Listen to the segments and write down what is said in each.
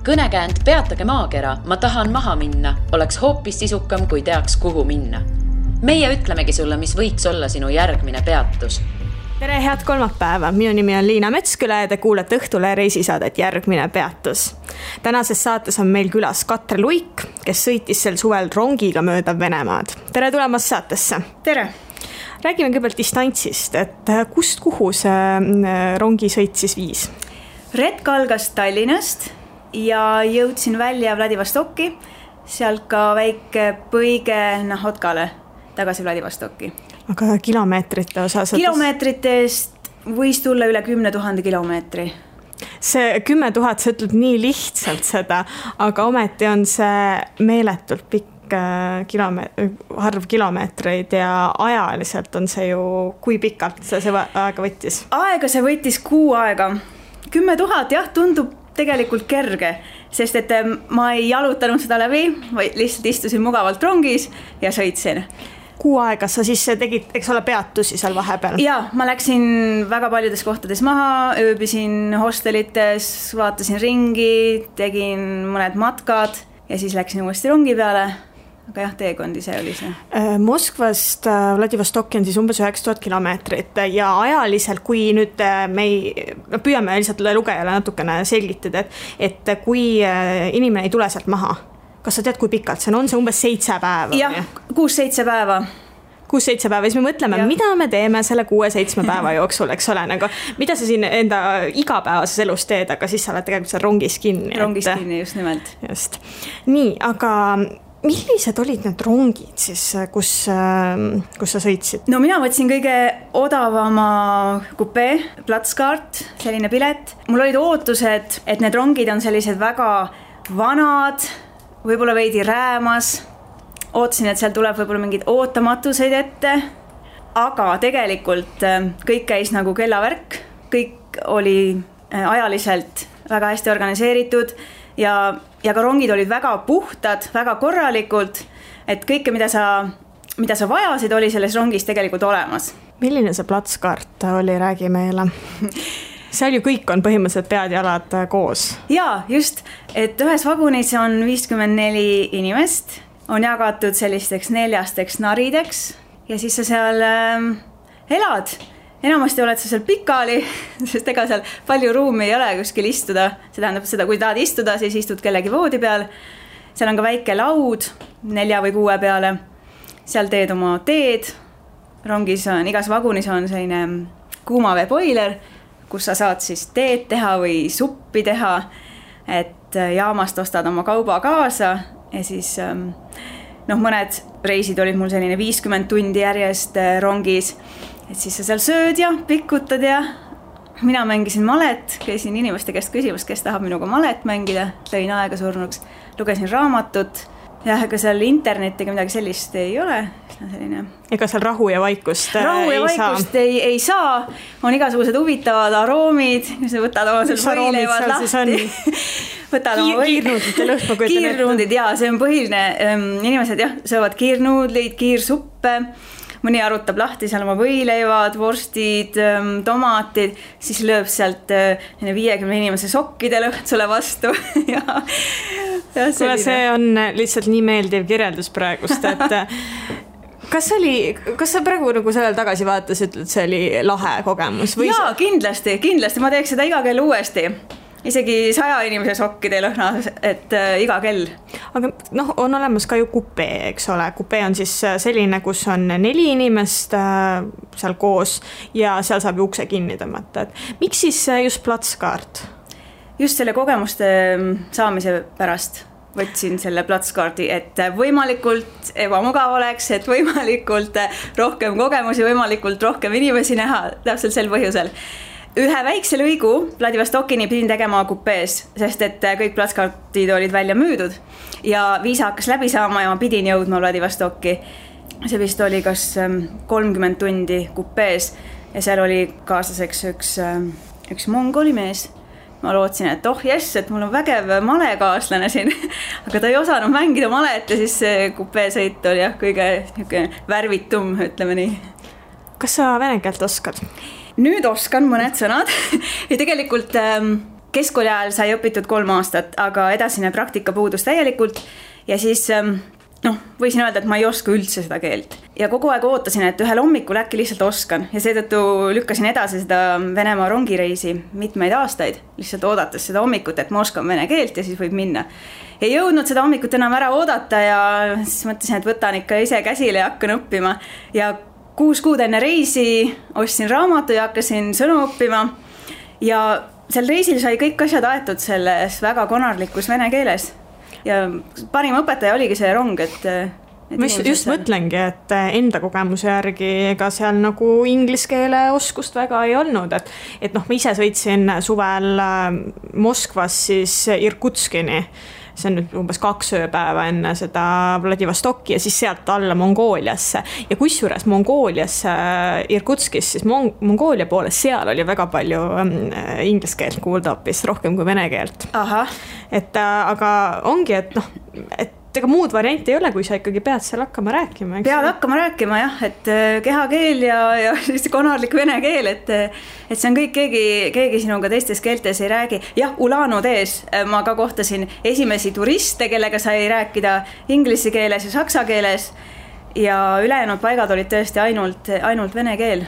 Kõnekäänd Peatage maakera, ma tahan maha minna, oleks hoopis sisukam, kui teaks, kuhu minna. Meie ütlemegi sulle, mis võiks olla sinu järgmine peatus. Tere, head kolmapäeva! Minu nimi on Liina Metsküla ja te kuulete Õhtule reisisaadet Järgmine peatus. Tänases saates on meil külas Katre Luik, kes sõitis sel suvel rongiga mööda Venemaad. Tere tulemast saatesse! Tere! Räägime kõigepealt distantsist, et kust kuhu see rongisõit siis viis? Retk algas Tallinnast ja jõudsin välja Vladivostokki, sealt ka väike põige Nahotkale tagasi Vladivostokki. Aga kilomeetrite osas? Kilomeetritest võis tulla üle 10 000 kilomeetri. See 10 000, see ütleb nii lihtsalt seda, aga ometi on see meeletult pikk arv kilomeetreid ja ajaliselt on see ju, kui pikalt see aega võttis? Aega see võttis 6 aega. 10 000 jah, tundub tegelikult kerge, sest et ma ei jalutanud seda läbi, vaid lihtsalt istusin mugavalt rongis ja sõitsin. 6 aega sa siis tegid, eks ole, peatusi seal vahepeal? Jaa, ma läksin väga paljudes kohtades maha, ööbisin hostelites, vaatasin ringi, tegin mõned matkad ja siis läksin uuesti rongi peale. Aga jah, teekondi see oli see. Moskvast Vladivostokki on siis umbes 9000 kilomeetrit ja ajaliselt, kui nüüd me püüame lihtsalt lugejale natukene selgitada, et kui inimene ei tule sealt maha, kas sa tead, kui pikalt see on see umbes 7 päeva? Jah, 6-7 päeva. 6-7 päeva, siis me mõtleme, mida me teeme selle 6-7 päeva jooksul, eks ole, nagu, mida sa siin enda igapäevases elus teed, aga siis sa oled tegelikult seal rongis kinni. Rongis kinni, just nimelt. Just. Nii, aga millised olid need rongid siis, kus sa sõitsid? No mina võtsin kõige odavama kupee, platskaart, selline pilet. Mul olid ootused, et need rongid on sellised väga vanad, võib-olla veidi räämas. Ootasin, et seal tuleb võib-olla mingid ootamatuseid ette, aga tegelikult kõik käis nagu kellavärk, kõik oli ajaliselt väga hästi organiseeritud ja ka rongid olid väga puhtad, väga korralikult, et kõike, mida sa vajasid, oli selles rongis tegelikult olemas. Milline see platskaart oli, räägi meile? Seal ju kõik on põhimõtteliselt pead ja jalad koos. Jaa, just, et ühes vagunis on 54 inimest, on jagatud sellisteks 4 narideks ja siis sa seal elad. Enamasti oled sa seal pikali, sest ega seal palju ruumi ei ole kuskil istuda. See tähendab seda, kui tahad istuda, siis istud kellegi voodi peal. Seal on ka väike laud 4 või 6 peale. Seal teed oma teed. Rongis on, igas vagunis on selline kuumaveepoiler, kus sa saad siis teed teha või suppi teha. Et jaamast ostad oma kauba kaasa ja siis mõned reisid olid mul selline 50 tundi järjest rongis. Et siis sa seal sööd ja pikutad ja mina mängisin malet, käisin inimeste käest küsimus, kes tahab minuga malet mängida, lõin aega surnuks, lugesin raamatut ja ega seal internetiga midagi sellist ei ole. Selline... Ega seal rahu ja vaikust ei saa, on igasugused huvitavad aroomid, kus võtad oma seal võileivad lahti. Kiirnuudlid, jaa, see on põhiline. Inimesed jah, söövad kiirnuudlid, kiirsuppe. Mõni arutab lahti seal oma võileivad, vorstid, tomatid, siis lööb sealt 50 inimese sokkide lõht sulle vastu. See on lihtsalt nii meeldiv kirjeldus praegust, et kas sa praegu nagu sellel tagasi vaatas, ütled, see oli lahe kogemus? Jaa, kindlasti, ma teeks seda iga kell uuesti. Isegi 100 inimese sokkide lõhna, et iga kell. Aga on olemas ka ju kupee, eks ole. Kupee on siis selline, kus on 4 inimest seal koos ja seal saab ukse kinni tõmmata. Miks siis just platskaart? Just selle kogemuste saamise pärast võtsin selle platskaardi, et võimalikult ebamugav oleks, et võimalikult rohkem kogemusi, võimalikult rohkem inimesi näha, täpselt sel põhjusel. Ühe väikse lõigu Vladivostokini pidin tegema kupees, sest et kõik platskaartid olid välja müüdud ja viisa hakkas läbi saama ja ma pidin jõudma Vladivostokki. See vist oli kas 30 tundi kupees ja seal oli kaaslaseks üks mongoli mees. Ma lootsin, et et mul on vägev malekaaslane siin, aga ta ei osanud mängida malet ja siis see kupeesõit oli kõige värvitum, ütleme nii. Kas sa vene keelt oskad? Nüüd oskan mõned sõnad ja tegelikult keskkooli ajal sai õpitud 3 aastat, aga edasine praktika puudus täielikult ja siis võisin öelda, et ma ei oska üldse seda keelt. Ja kogu aeg ootasin, et ühel hommikul äkki lihtsalt oskan ja seetõttu lükkasin edasi seda Venemaa rongireisi mitmeid aastaid, lihtsalt oodates seda hommikut, et ma oskan vene keelt ja siis võib minna. Ei jõudnud seda hommikut enam ära oodata ja siis mõtlesin, et võtan ikka ise käsile ja hakkan õppima. Ja 6 kuud enne reisi ostsin raamatu ja hakkasin sõnu õppima ja sel reisil sai kõik asjad aetud selles väga konarlikus vene keeles. Ja parim õpetaja oligi see rong, ma just mõtlengi, et enda kogemuse järgi ega seal nagu inglise keele oskust väga ei olnud, et ma ise sõitsin suvel Moskvas siis Irkutskini, see on nüüd umbes 2 ööpäeva enne seda Vladivostokki ja siis sealt alla Mongooliasse ja kusjuures Mongooliasse Irkutskis, siis Mongoolia poolest seal oli väga palju inglise keelt kuulda hoopis rohkem kui vene keelt. Aga ongi, et ega muud varianti ei ole, kui sa ikkagi pead seal hakkama rääkima. Pead hakkama rääkima jah, et kehakeel ja siis konarlik vene keel, et see on kõik, keegi sinuga teistes keeltes ei räägi. Jah, Ulan-Udes ma ka kohtasin esimesi turiste, kellega sai rääkida inglise keeles ja saksa keeles ja ülejäänud paigad olid tõesti ainult vene keel.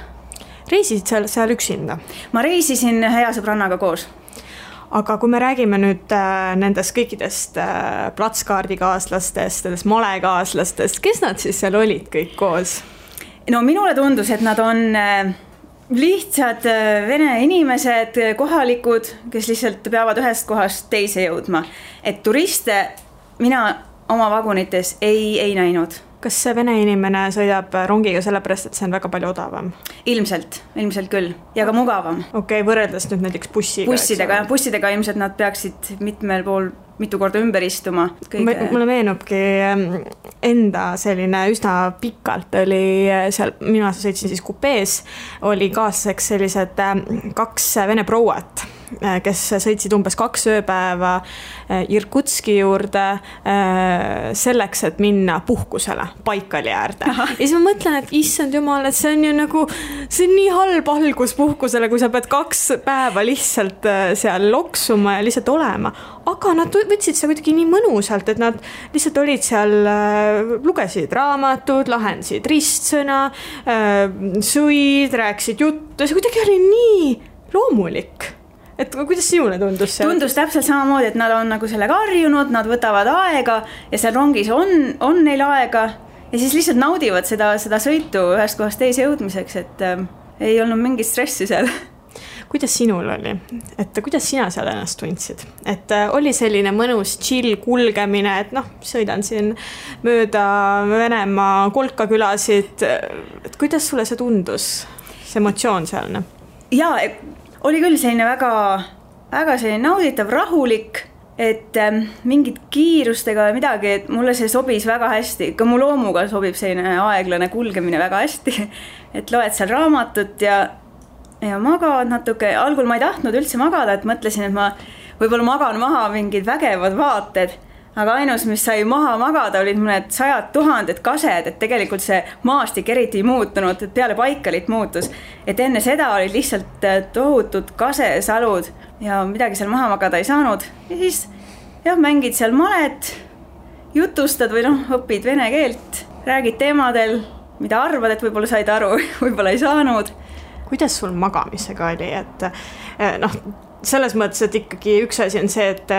Reisisid seal üksinda? Ma reisisin hea sõbrannaga koos. Aga kui me räägime nüüd nendest kõikidest platskaardikaaslastest, nendest malekaaslastest, kes nad siis seal olid kõik koos? No minule tundus, et nad on lihtsad vene inimesed, kohalikud, kes lihtsalt peavad ühest kohast teise jõudma. Et turiste mina oma vagunites ei näinud. Kas see vene inimene sõidab rongiga sellepärast, et see on väga palju odavam? Ilmselt küll ja ka mugavam. Okei, võrreldes nüüd näiteks bussidega ilmselt nad peaksid mitu korda ümber istuma. Mulle meenubki enda selline üsna pikalt oli seal, mina sõitsin siis kupees, oli kaaslaseks sellised 2 vene prouat, kes sõitsid umbes 2 ööpäeva Irkutski juurde selleks, et minna puhkusele Baikali äärde. Ja siis ma mõtlen, et issand jumal, et see on ju nagu, see on nii halb algus puhkusele, kui sa pead 2 päeva lihtsalt seal loksuma ja lihtsalt olema. Aga nad võtsid see kuidagi nii mõnusalt, et nad lihtsalt olid seal, lugesid raamatud, lahendasid ristsõna, sõid, rääkisid juttu, see kuidagi oli nii loomulik. Et kuidas sinule tundus see? Tundus täpselt samamoodi, et nad on nagu sellega harjunud, nad võtavad aega ja seal rongis on neil aega ja siis lihtsalt naudivad seda sõitu ühest kohast teise jõudmiseks, et ei olnud mingit stressi seal. Kuidas sinul oli? Et kuidas sina seal ennast tundsid? Et oli selline mõnus chill kulgemine, et sõidan siin mööda Venemaa kolkakülasid. Et kuidas sulle see tundus? See emotsioon sealne? Jaa, oli küll selline väga selline nauditav, rahulik, et mingid kiirustega midagi, et mulle see sobis väga hästi. Ka mu loomuga sobib selline aeglane kulgemine väga hästi, et loed seal raamatut ja magad natuke. Algul ma ei tahtnud üldse magada, et mõtlesin, et ma võib-olla magan maha mingid vägevad vaated, aga ainus, mis sai maha magada, olid mõned 100 000 kased, et tegelikult see maastik eriti ei muutunud, et peale Baikalit muutus. Et enne seda olid lihtsalt tohutud kasesalud ja midagi seal maha magada ei saanud. Ja siis mängid seal malet, jutustad või õpid vene keelt, räägid teemadel, mida arvad, et võib-olla said aru, võib-olla ei saanud. Kuidas sul magamisega oli, et selles mõttes, et ikkagi üks asi on see, et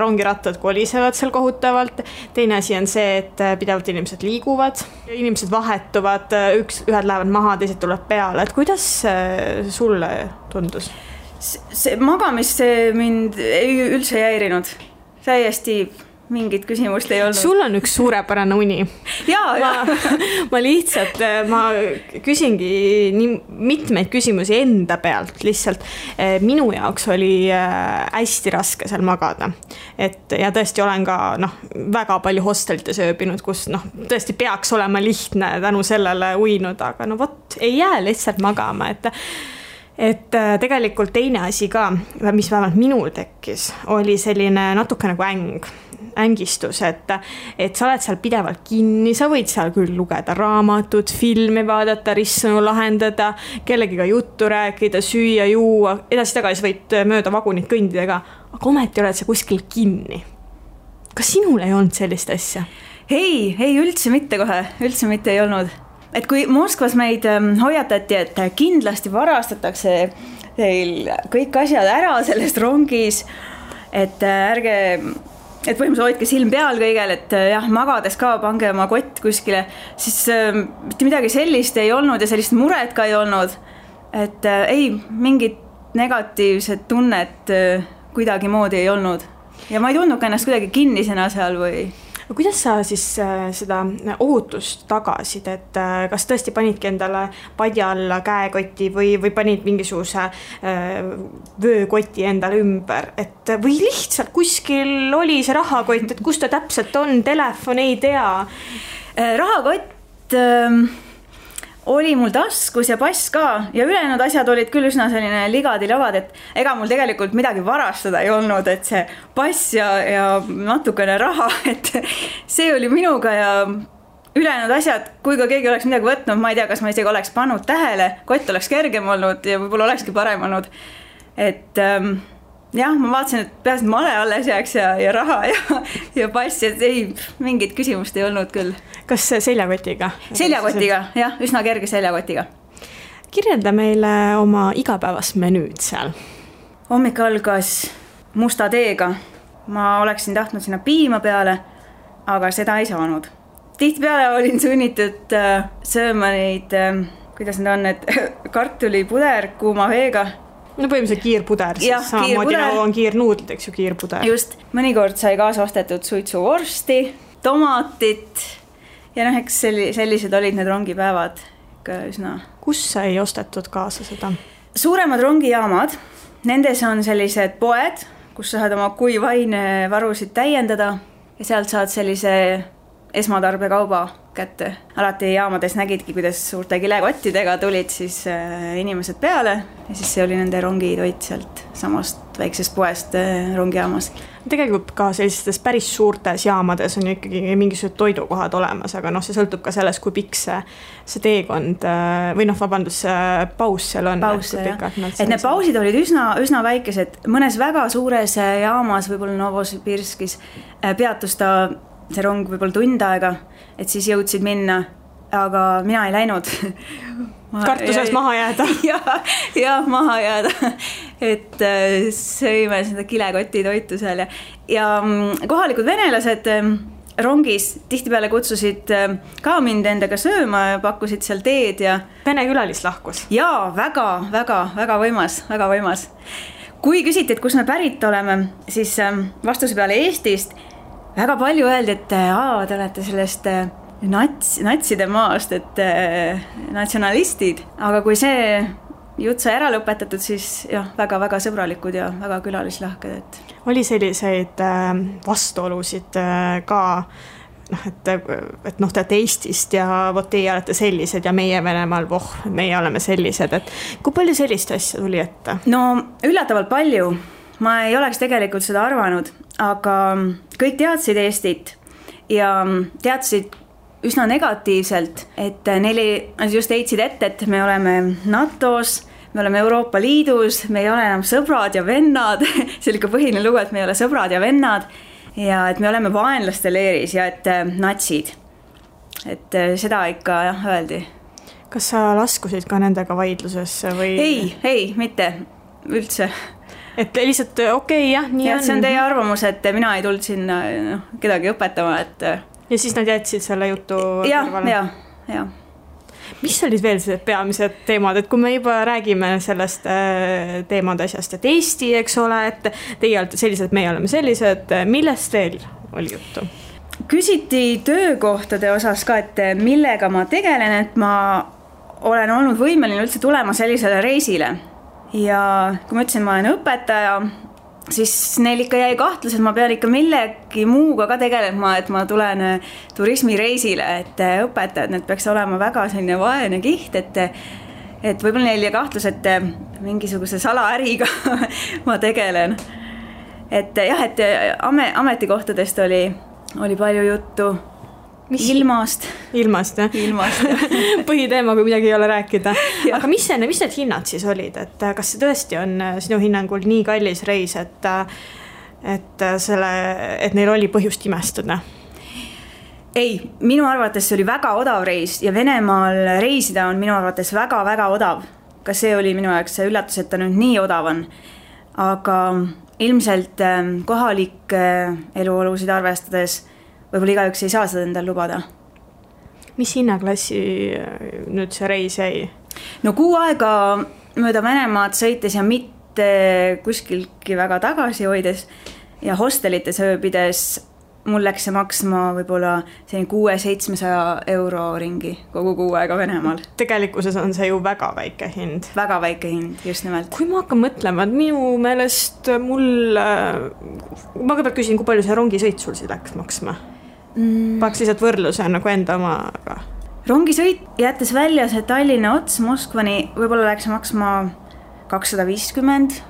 rongirattad kolisevad seal kohutavalt, teine asi on see, et pidevalt inimesed liiguvad, inimesed vahetuvad, ühed lähevad maha, teised tuleb peale, et kuidas sulle tundus? See magamis mind üldse ei häirinud, täiesti mingit küsimust ei olnud. Sul on üks suurepärane uni. Ma lihtsalt, ma küsingi nii mitmeid küsimusi enda pealt lihtsalt. Minu jaoks oli hästi raske seal magada. Ja tõesti olen ka väga palju hostelites ööbinud, kus tõesti peaks olema lihtne tänu sellele uinud, aga ei jää lihtsalt magama, et tegelikult teine asi ka, mis vähemalt minul tekkis, oli selline natuke nagu äng. ängistus, et sa oled seal pidevalt kinni, sa võid seal küll lugeda raamatut, filmi vaadata, ristsõnu lahendada, kellegiga juttu rääkida, süüa, juua, edasi-tagasi võid mööda vagunit kõndidega, aga ometi oled sa kuskil kinni. Kas sinul ei olnud sellist asja? Ei, üldse mitte kohe, üldse mitte ei olnud. Et kui Moskvas meid hoiatati, et kindlasti varastatakse teil kõik asjad ära sellest rongis, et põhimõtteliselt hoidke silm peal kõigel, et jah, magades ka pange oma kott kuskile, siis mitte midagi sellist ei olnud ja sellist muret ka ei olnud. Et ei, mingit negatiivset tunnet kuidagi moodi ei olnud. Ja ma ei tundnud ka ennast kuidagi kinnisena seal või... Kuidas sa siis seda ohutust tagasid, et kas tõesti panidki endale padja alla käekoti või panid mingisuguse vöökoti endale ümber, et või lihtsalt kuskil oli see rahakott, et kus ta täpselt on, telefon ei tea? Rahakott oli mul taskus ja pass ka ja ülejäänud asjad olid küll üsna selline ligadi-lagad, et ega mul tegelikult midagi varastada ei olnud, et see pass ja natukene raha, et see oli minuga ja ülejäänud asjad, kui ka keegi oleks midagi võtnud, ma ei tea, kas ma isegi oleks pannud tähele, kott oleks kergem olnud ja võib-olla olekski parem olnud, et jah, ma vaatasin, et peaasi male alles jääks ja raha ja pass, et ei, mingit küsimust ei olnud küll. Kas seljakotiga? Seljakotiga, jah, üsna kerge seljakotiga. Kirjelda meile oma igapäevast menüüd seal. Hommik algas musta teega. Ma oleksin tahtnud sinna piima peale, aga seda ei saanud. Tihtipeale olin sunnitud sööma neid, kuidas need on, et kartulipuder kuuma veega. No põhimõtteliselt kiirpuder, siis samamoodi nagu on kiirnuudlid, eks ju, kiirpuder. Just, mõnikord sai kaasa ostetud suitsuvorsti, tomatit ja eks sellised olid need rongipäevad ikka üsna. Kus sai ostetud kaasa seda? Suuremad rongijaamad, nendes on sellised poed, kus saad oma kuivainevarusid täiendada ja sealt saad sellise esmatarbekauba kätte. Alati jaamades nägidki, kuidas suurte kilekottidega tulid siis inimesed peale ja siis see oli nende rongitoit sealt samast väiksest poest rongijaamas. Tegelikult ka sellistes päris suurtes jaamades on ju ikkagi mingisugused toidukohad olemas, aga see sõltub ka sellest, kui pikk see teekond või paus seal on. Paus, et need pausid olid üsna väikesed. Mõnes väga suures jaamas, võib-olla Novosibirskis, peatus ta see rong võib-olla tund aega, et siis jõudsid minna, aga mina ei läinud. Kartuses maha jääda. Ja maha jääda, et sõime seda kilekoti toitu seal ja kohalikud venelased rongis tihtipeale kutsusid ka mind endaga sööma ja pakkusid seal teed ja... Vene külalislahkus. Jaa, väga võimas. Kui küsiti, et kus me pärit oleme, siis vastuse peale Eestist väga palju öeldi, et te olete sellest natside maast, et natsionalistid, aga kui see jutt sai ära lõpetatud, siis jah, väga sõbralikud ja väga külalislahked. Et... Oli selliseid vastuolusid ka, et te olete Eestist ja teie olete sellised ja meie Venemaal, meie oleme sellised, et kui palju sellist asja tuli ette? No üllatavalt palju. Ma ei oleks tegelikult seda arvanud, aga kõik teadsid Eestit ja teadsid üsna negatiivselt, et neile just heitsid ette, et me oleme NATO-s, me oleme Euroopa Liidus, me ei ole enam sõbrad ja vennad, see oli ka põhiline lugu, et me ei ole sõbrad ja vennad ja et me oleme vaenlaste leeris ja et natsid. Et seda ikka öeldi. Kas sa laskusid ka nendega vaidlusesse või? Ei, mitte üldse. Et lihtsalt okei, jah, nii on. See on teie arvamus, et mina ei tulnud sinna kedagi õpetama, et... Ja siis nad jätsid selle jutu kõrvale? Ja. Mis olid veel see peamised teemad, et kui me juba räägime sellest teemade asjast, et Eesti, eks ole, et teie olete sellised, meie oleme sellised, millest veel oli juttu? Küsiti töökohtade osas ka, et millega ma tegelen, et ma olen olnud võimeline üldse tulema sellisele reisile. Ja kui ma ütlesin, ma olen õpetaja, siis neil ikka jäi kahtlus, et ma pean ikka millegi muuga ka tegelema, et ma tulen turismireisile, et õpetajad, need peaks olema väga selline vaene kiht, et võib-olla neil jäi kahtlus, et mingisuguse salaäriga ma tegelen. et jah, et ametikohtadest oli palju juttu. Ilmast, jah? Ilmast, jah. Põhiteema, kui midagi ei ole rääkida. Aga mis need hinnad siis olid? Et kas see tõesti on sinu hinnangul nii kallis reis, et neil oli põhjust imestuda? Ei, minu arvates see oli väga odav reis ja Venemaal reisida on minu arvates väga-väga odav. Ka see oli minu jaoks see üllatus, et ta nüüd nii odav on. Aga ilmselt kohalik eluolusid arvestades võib-olla igaüks ei saa seda endal lubada. Mis hinnaklassi nüüd see reis jäi? No 6 aega mööda Venemaad sõites ja mitte kuskilgi väga tagasi hoides ja hostelites ööbides mul läks see maksma võib-olla 600-700 euro ringi kogu 6 aega Venemaal. Tegelikkuses on see ju väga väike hind. Väga väike hind, just nimelt. Kui ma hakkan mõtlema, et minu meelest ma kõigepealt küsin, kui palju see rongisõit sul siis läks maksma? Paaks lihtsalt võrdluse nagu enda omaga. Rongisõit jättes välja see Tallinna ots Moskvani võib-olla läks maksma 250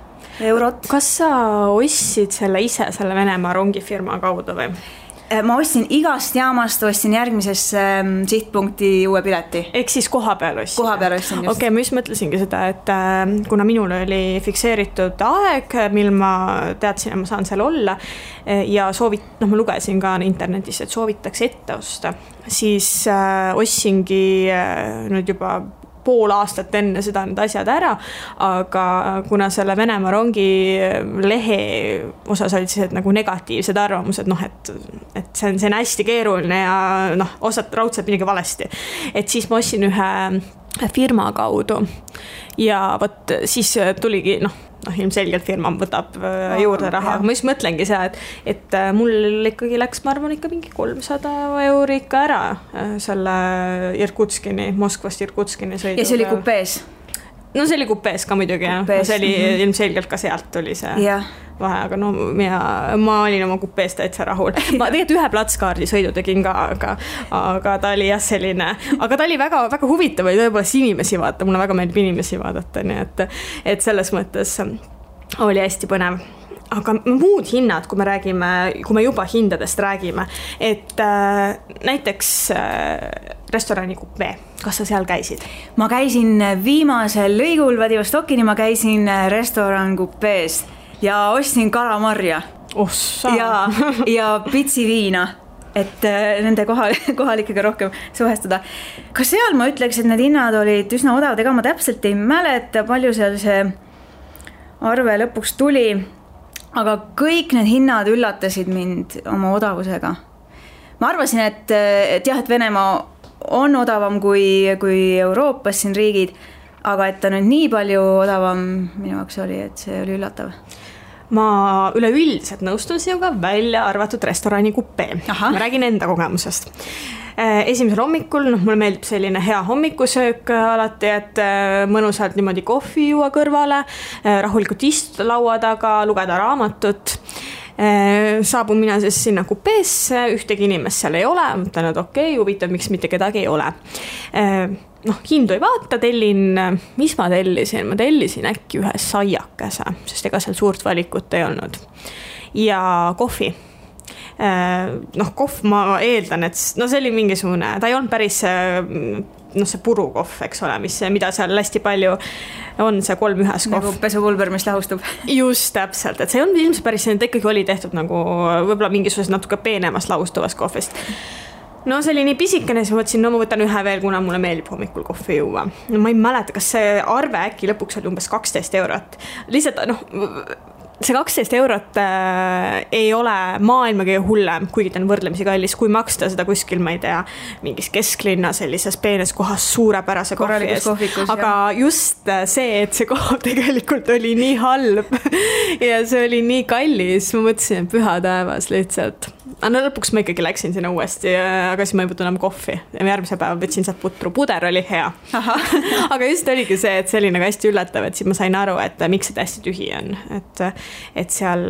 eurot. Kas sa ostsid selle ise selle Venemaa rongifirma kaudu või? Ma ostsin igast jaamast, ostsin järgmisesse sihtpunkti uue pileti. Ehk siis koha peal ostsin? Koha peal ostsin just. Okei, ma just mõtlesingi seda, et kuna minul oli fikseeritud aeg, mil ma teadsin, et ma saan seal olla ja ma lugesin ka internetis, et soovitakse ette osta, siis ostsingi nüüd juba pool aastat enne seda need asjad ära, aga kuna selle Venemaa rongi lehe osas olid siis nagu negatiivsed arvamused, et see on hästi keeruline ja osad raudselt midagi valesti. Et siis ma ostsin ühe firma kaudu ja võt siis tuligi, ilmselgelt firma võtab juurde raha. Ma just mõtlengi see, et mul ikkagi läks, ma arvan, ikka mingi 300 euro ikka ära selle Irkutskini, Moskvast Irkutskini sõiduga. Ja see oli kupees? No see oli kupees ka muidugi, see oli ilmselgelt ka sealt tuli see vahe, aga ma olin oma kupees täitsa rahul. Ma tegelikult ühe platskaardi sõidu tegin ka, aga ta oli jah selline, aga ta oli väga, väga huvitav või tõepoolest inimesi vaadata, mulle väga meeldib inimesi vaadata, nii et selles mõttes oli hästi põnev. Aga muud hinnad, kui me juba hindadest räägime, et näiteks restorani kupee, kas sa seal käisid? Ma käisin viimasel lõigul Vladivostokini, ma käisin restoran kupees ja ostsin kalamarja ja pitsi viina, et nende kohalikega rohkem suhestuda. Ka seal ma ütleks, et need hinnad olid üsna odavad, ega ma täpselt ei mäleta, palju seal see arve lõpuks tuli, aga kõik need hinnad üllatasid mind oma odavusega. Ma arvasin, et Venemaa on odavam kui Euroopas siin riigid, aga et ta nüüd nii palju odavam minu jaoks oli, et see oli üllatav. Ma üleüldiselt nõustun sinuga välja arvatud restorani kupee. Ma räägin enda kogemusest. Esimesel hommikul, mulle meeldib selline hea hommikusöök alati, et mõnusalt niimoodi kohvi juua kõrvale, rahulikult istuda laua taga, lugeda raamatut. Saabun mina siis sinna kupeesse, ühtegi inimest seal ei ole, mõtlen, et okei, huvitav, miks mitte kedagi ei ole. Hindu ei vaata, mis ma tellisin? Ma tellisin äkki ühe saiakese, sest ega seal suurt valikut ei olnud. Ja kohvi. Kohv ma eeldan, et see oli mingisugune, ta ei olnud päris see purukohv, eks ole, mida seal hästi palju on, see 3-1 kohv. Nagu pesupulber, mis lahustub. Just täpselt, et see on ilmselt päris, ta ikkagi oli tehtud nagu võib-olla mingisugusest natuke peenemast lahustuvast kohvist. See oli nii pisikene, siis ma mõtlesin, ma võtan ühe veel, kuna mulle meeldib hommikul kohvi juua. Ma ei mäleta, kas see arve äkki lõpuks oli umbes 12 eurot. Lihtsalt, see 12 eurot ei ole maailma kõige hullem, kuigi ta on võrdlemisi kallis, kui maksta seda kuskil, ma ei tea, mingis kesklinna sellises peenes kohas suurepärase kohvi eest. Aga just see, et see koht tegelikult oli nii halb ja see oli nii kallis, ma mõtlesin, et püha taevas lihtsalt. Lõpuks ma ikkagi läksin sinna uuesti, aga siis ma ei võtnud enam kohvi. Järgmise päeva võtsin sealt putru, puder oli hea. Aga just oligi see, et see oli nagu hästi üllatav, et siis ma sain aru, et miks see hästi tühi on. Et seal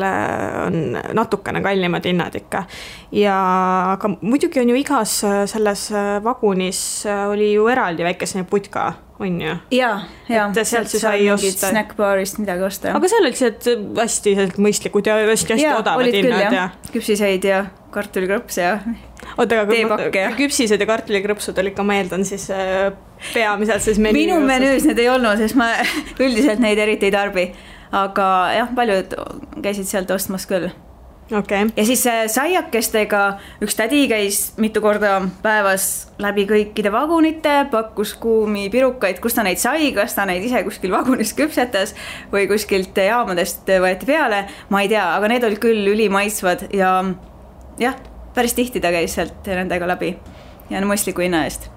on natukene kallimad hinnad ikka. Aga muidugi on ju igas selles vagunis oli ju eraldi väikese putka on ju? ja et sealt siis sai osta snackbaarist midagi osta. Aga seal olid hästi mõistlikud ja hästi odavad hinnad ja küpsiseid ja kartulikrõps ja teepakke ja küpsised ja kartulikrõpsud olid ka, ma eeldan siis peamiselt siis minu menüüs need ei olnud, sest ma üldiselt neid eriti ei tarbi, aga jah, paljud käisid sealt ostmas küll. Okay. Ja siis saiakestega üks tädi käis mitu korda päevas läbi kõikide vagunite, pakkus kuumi pirukaid, kus ta neid sai, kas ta neid ise kuskil vagunis küpsetas või kuskilt jaamadest võeti peale, ma ei tea, aga need olid küll ülimaitsvad ja jah, päris tihti ta käis sealt nendega läbi ja mõistliku hinna eest.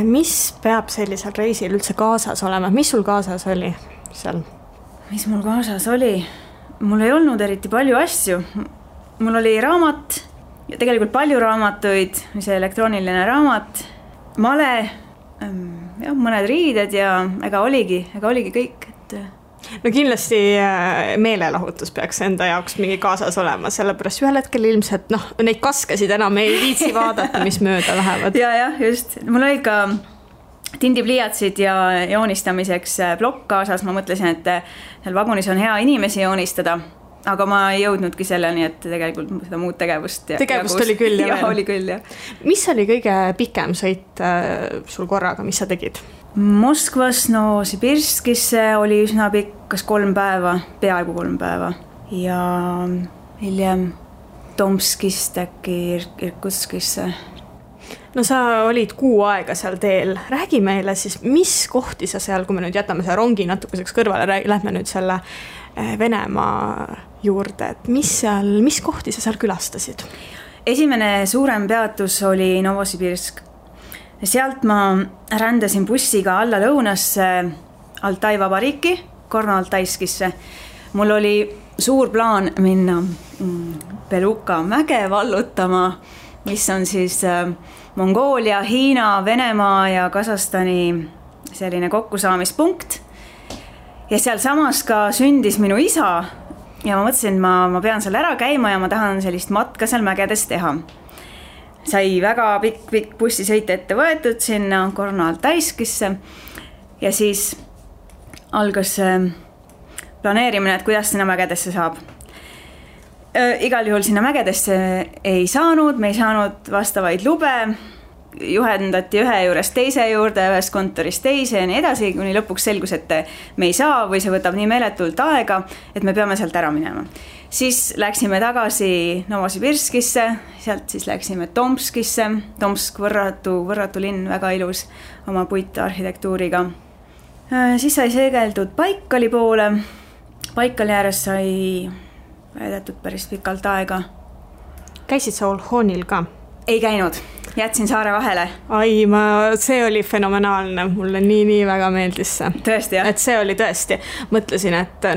Mis peab sellisel reisil üldse kaasas olema? Mis sul kaasas oli seal? Mis mul kaasas oli? Mul ei olnud eriti palju asju. Mul oli raamat, ja tegelikult palju raamatuid, see elektrooniline raamat, male, ja mõned riided ja ega oligi kõik. No kindlasti meelelahutus peaks enda jaoks mingi kaasas olema, sellepärast ühel hetkel ilmselt neid kaskesid enam ei viitsi vaadata, mis mööda lähevad. Ja, just. Mul oli ka tindipliiatsid ja joonistamiseks plokk kaasas, ma mõtlesin, et seal vagunis on hea inimesi joonistada, aga ma ei jõudnudki selleni, et tegelikult seda muud tegevust oli küll ja oli küll, jah. Mis oli kõige pikem sõit sul korraga, mis sa tegid? Moskvas Novosibirskisse oli üsna pikk, kas 3 päeva, peaaegu 3 päeva ja hiljem Tomskist äkki Irkutskisse. No sa olid 6 aega seal teel. Räägi meile siis, mis kohti sa seal, kui me nüüd jätame selle rongi natukeseks kõrvale, lähme nüüd selle Venemaa juurde, et mis kohti sa seal külastasid? Esimene suurem peatus oli Novosibirsk. Sealt ma rändasin bussiga alla lõunasse Altai vabariiki, Gorno-Altaiskisse. Mul oli suur plaan minna Beluka mäge vallutama, mis on siis Mongoolia, Hiina, Venemaa ja Kasahstani selline kokkusaamispunkt. Ja seal samas ka sündis minu isa ja ma mõtlesin, et ma pean seal ära käima ja ma tahan sellist matka seal mägedes teha. Sai väga pikk bussisõit ette võetud sinna Gorno-Altaiskisse ja siis algas planeerimine, et kuidas sinna mägedesse saab. Igal juhul sinna mägedesse ei saanud, me ei saanud vastavaid lube, juhendati ühe juurest teise juurde, ühest kontorist teise ja nii edasi, kuni lõpuks selgus, et me ei saa või see võtab nii meeletult aega, et me peame sealt ära minema. Siis läksime tagasi Novosibirskisse, sealt siis läksime Tomskisse, Tomsk võrratu linn, väga ilus oma puitarhitektuuriga. Siis sai seegeldud Baikali poole, Baikali ääres sai veedetud päris pikalt aega. Käisid sa Olhonil ka? Ei käinud, jätsin saare vahele. Ai, see oli fenomenaalne, mulle nii väga meeldis see. Tõesti, jah? Et see oli tõesti, mõtlesin, et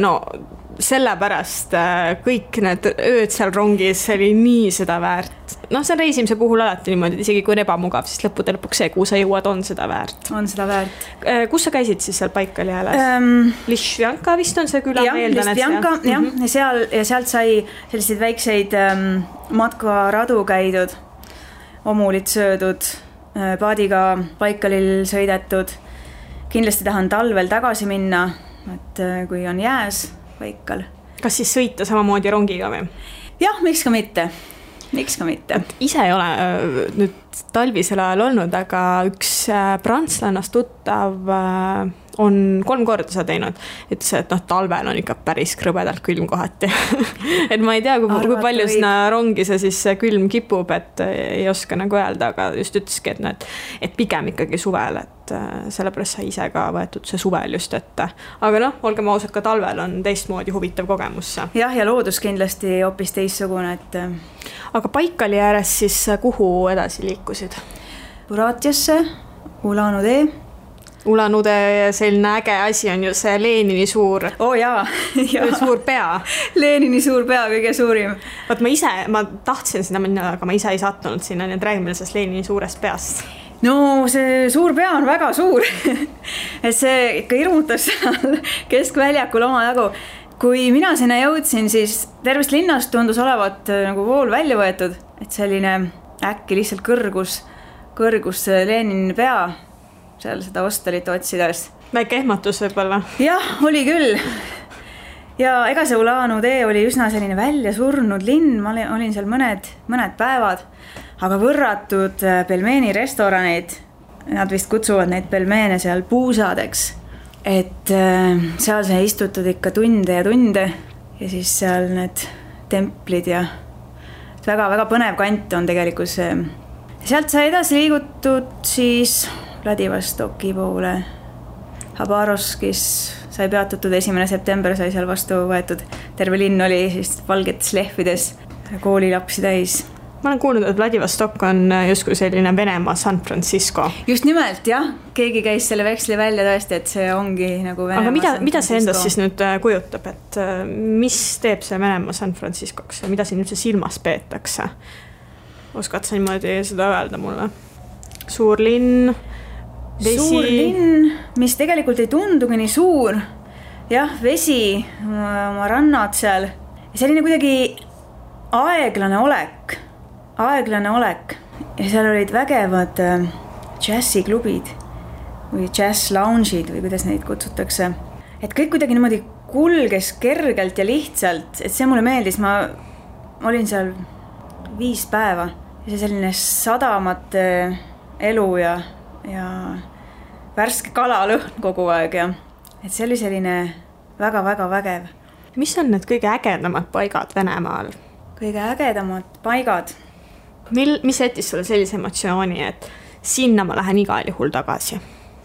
sellepärast kõik need ööd seal rongis oli nii seda väärt. See reisimise puhul alati niimoodi, isegi kui on ebamugav, siis lõppude lõpuks see, kuhu sa jõuad, on seda väärt. On seda väärt. Kus sa käisid siis seal Baikali ääres? Lišvjanka vist on see küla, meeldan. Jah, ja sealt sai selliseid väikseid matkaradu käidud, omulid söödud, paadiga Baikalil sõidetud. Kindlasti tahan talvel tagasi minna, et kui on jääs Baikal. Kas siis sõita samamoodi rongiga või? Jah, miks ka mitte. Ise ei ole nüüd talvisel ajal olnud, aga üks prantslannast tuttav on 3 korda seda teinud. Ütles, et talvel on ikka päris krõbedalt külm kohati. Et ma ei tea, kui palju sinna rongi see siis külm kipub, et ei oska nagu öelda, aga just ütleski, et pigem ikkagi suvel, et sellepärast sai ise ka võetud see suvel just ette. Aga olgem ausad, ka talvel on teistmoodi huvitav kogemus. Jah, ja loodus kindlasti hoopis teistsugune, et... Aga Baikali ääres siis kuhu edasi liikusid? Buratiasse, Ulan-Ude. Ulan-Ude selline äge asi on ju see Lenini suur... suur pea. Lenini suur pea, kõige suurim. Ma tahtsin sinna minna, aga ma ise ei sattunud sinna, nii et räägime sellest Lenini suurest peast. No see suur pea on väga suur. Et see ikka irmutas seal keskväljakul oma jagu. Kui mina sinna jõudsin, siis tervest linnast tundus olevat nagu vool välja võetud, et selline äkki lihtsalt kõrgus Lenini pea seal seda hostelit otsides. Väike ehmatus võib-olla. Jah, oli küll. Ja ega see Ulanu tee oli üsna selline välja surnud linn, ma olin seal mõned päevad, aga võrratud pelmeeni restoranid, nad vist kutsuvad neid pelmeene seal puusadeks, et seal sai istutud ikka tunde ja tunde ja siis seal need templid ja väga-väga põnev kant on tegelikult see. Sealt sai edasi liigutud siis Vladivostoki poole. Habarovskis sai peatutud 1. september, sai seal vastu võetud. Terve linn oli siis valgetes lehvides koolilapsi täis. Ma olen kuulnud, et Vladivostok on justkui selline Venemaa San Francisco. Just nimelt, jah. Keegi käis selle veksli välja tõesti, et see ongi nagu Venemaa. Aga mida see endast siis nüüd kujutab, et mis teeb see Venemaa San Franciscoks ja mida siin üldse silmas peetakse? Oskad sa niimoodi seda öelda mulle? Suur linn, vesi. Suur linn, mis tegelikult ei tundugi nii suur. Jah, vesi, oma rannad seal. Selline kuidagi aeglane olek. Ja seal olid vägevad džässiklubid või jazz lounge'id või kuidas neid kutsutakse. Et kõik kuidagi niimoodi kulges kergelt ja lihtsalt, et see mulle meeldis. Ma olin seal 5 päeva ja see selline sadamate elu ja värske kalalõhn kogu aeg ja et see oli selline väga-väga vägev. Mis on need kõige ägedamad paigad Venemaal? Kõige ägedamad paigad? Mis jättis sulle sellise emotsiooni, et sinna ma lähen igal juhul tagasi?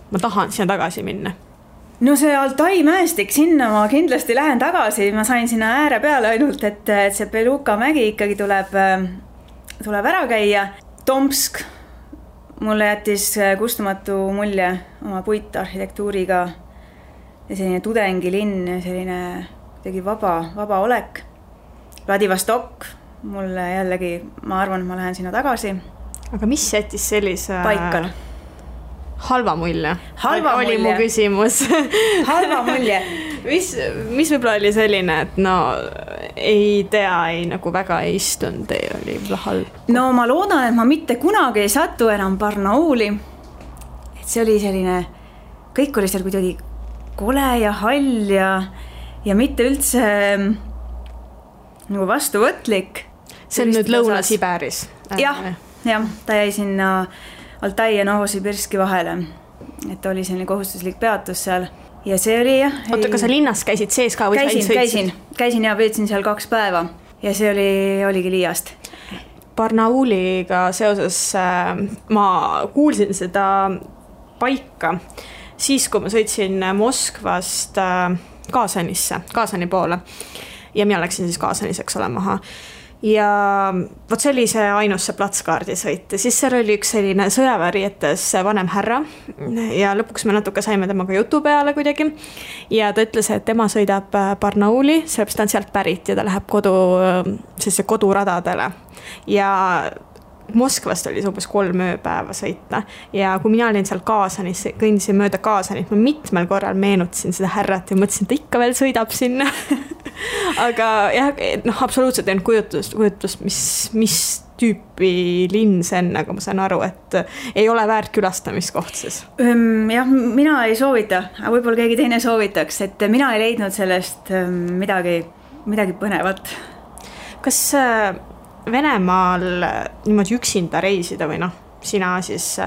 Ma tahan sinna tagasi minna. No see Altai mäestik, sinna ma kindlasti lähen tagasi. Ma sain sinna ääre peale ainult, et see Beluka mägi ikkagi tuleb ära käia. Tomsk mulle jättis kustumatu mulje oma puitarhitektuuriga ja selline tudengilinn ja selline tegi vaba olek. Vladivostok mulle jällegi, ma arvan, et ma lähen sinna tagasi. Aga mis jättis sellise paika? Halva mulje. Oli mu küsimus. Halva mulje. Mis võib-olla oli selline, et no ei tea, nagu väga ei istunud, oli halb? No ma loodan, et ma mitte kunagi ei satu enam Barnauli. Et see oli selline, kõik oli seal kuidagi kole ja hall ja mitte üldse nagu vastuvõtlik. See on nüüd Lõuna-Siberis. Jah, ta jäi sinna Altai ja Novosibirski vahele. Et oli selline kohustuslik peatus seal. Ja see oli jah. Oota, kas sa linnas käisid sees ka? Käisin ja veetsin seal 2 päeva. Ja see oligi liiast. Barnauliga seoses ma kuulsin seda paika siis, kui ma sõitsin Moskvast Kaasani poole. Ja mina läksin siis Kaasaniseks ole maha. Ja võt see oli see ainus see platskaardi sõit. Ja siis seal oli üks selline sõjaväärietes vanem härra ja lõpuks me natuke saime temaga jutu peale kuidagi. Ja ta ütles, et tema sõidab Barnauli, sellepärast ta on sealt pärit ja ta läheb koduradadele. Ja Moskvast oli see umbes 3 ööpäeva sõita ja kui mina olin seal Kaasanis, kõndisin mööda Kaasanit, ma mitmel korral meenutasin seda härrat ja mõtlesin, et ta ikka veel sõidab sinna. Aga jah, absoluutselt ei kujutust, mis tüüpi linn see on, aga ma saan aru, et ei ole väärt külastamiskoht siis. Jah, mina ei soovita, aga võib-olla keegi teine soovitaks, et mina ei leidnud sellest midagi põnevat. Kas Venemaal niimoodi üksinda reisida või sina siis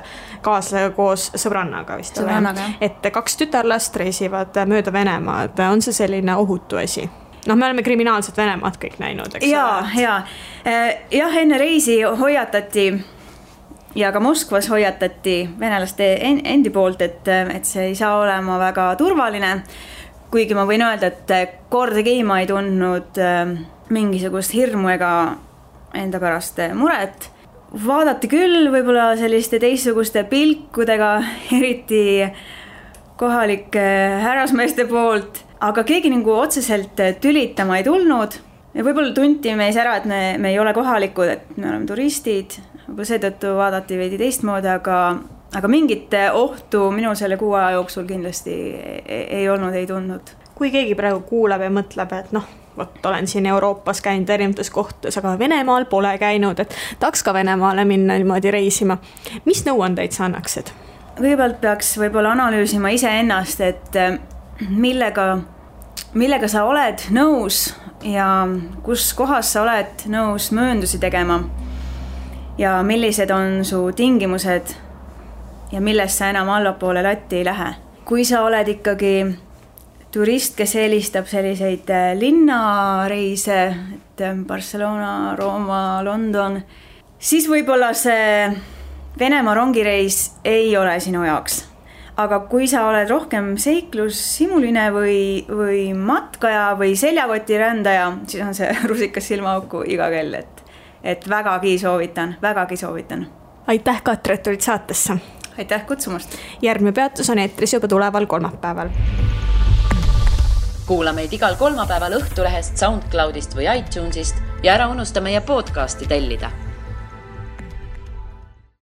kaaslasega koos sõbrannaga vist ole, et 2 tütarlast reisivad mööda Venemaad, on see selline ohutu asi? Me oleme kriminaalset Venemaad kõik näinud, eks? Jah, enne reisi hoiatati ja ka Moskvas hoiatati venelaste endi poolt, et see ei saa olema väga turvaline, kuigi ma võin öelda, et kordagi ma ei tundnud mingisugust hirmu ega enda pärast muret. Vaadati küll võib-olla selliste teistsuguste pilkudega, eriti kohalike härrasmeeste poolt, aga keegi nagu otseselt tülitama ei tulnud. Ja võib-olla tunti meis ära, et me ei ole kohalikud, et me oleme turistid. Seetõttu vaadati veidi teistmoodi, aga mingit ohtu minu selle 6 aja jooksul kindlasti ei olnud, ei tundnud. Kui keegi praegu kuulab ja mõtleb, et olen siin Euroopas käinud erinevates kohtades, aga Venemaal pole käinud, et tahaks ka Venemaale minna niimoodi reisima. Mis nõuandeid sa annaksid? kõigepealt peaks võib-olla analüüsima iseennast, et millega sa oled nõus ja kus kohas sa oled nõus mööndusi tegema ja millised on su tingimused ja millest sa enam allapoole latti ei lähe. Kui sa oled ikkagi turist, kes eelistab selliseid linnareise, et Barcelona, Rooma, London, siis võib-olla see Venemaa rongireis ei ole sinu jaoks. Aga kui sa oled rohkem seiklushimuline või matkaja või seljakoti rändaja, siis on see rusikas silmaauku iga kell, et vägagi soovitan. Aitäh, Katre, et tulid saatesse. Aitäh kutsumast. Järgmine peatus on eetris juba tuleval kolmapäeval. Kuula meid igal kolmapäeval Õhtulehest, SoundCloudist või iTunesist ja ära unusta meie podcasti tellida.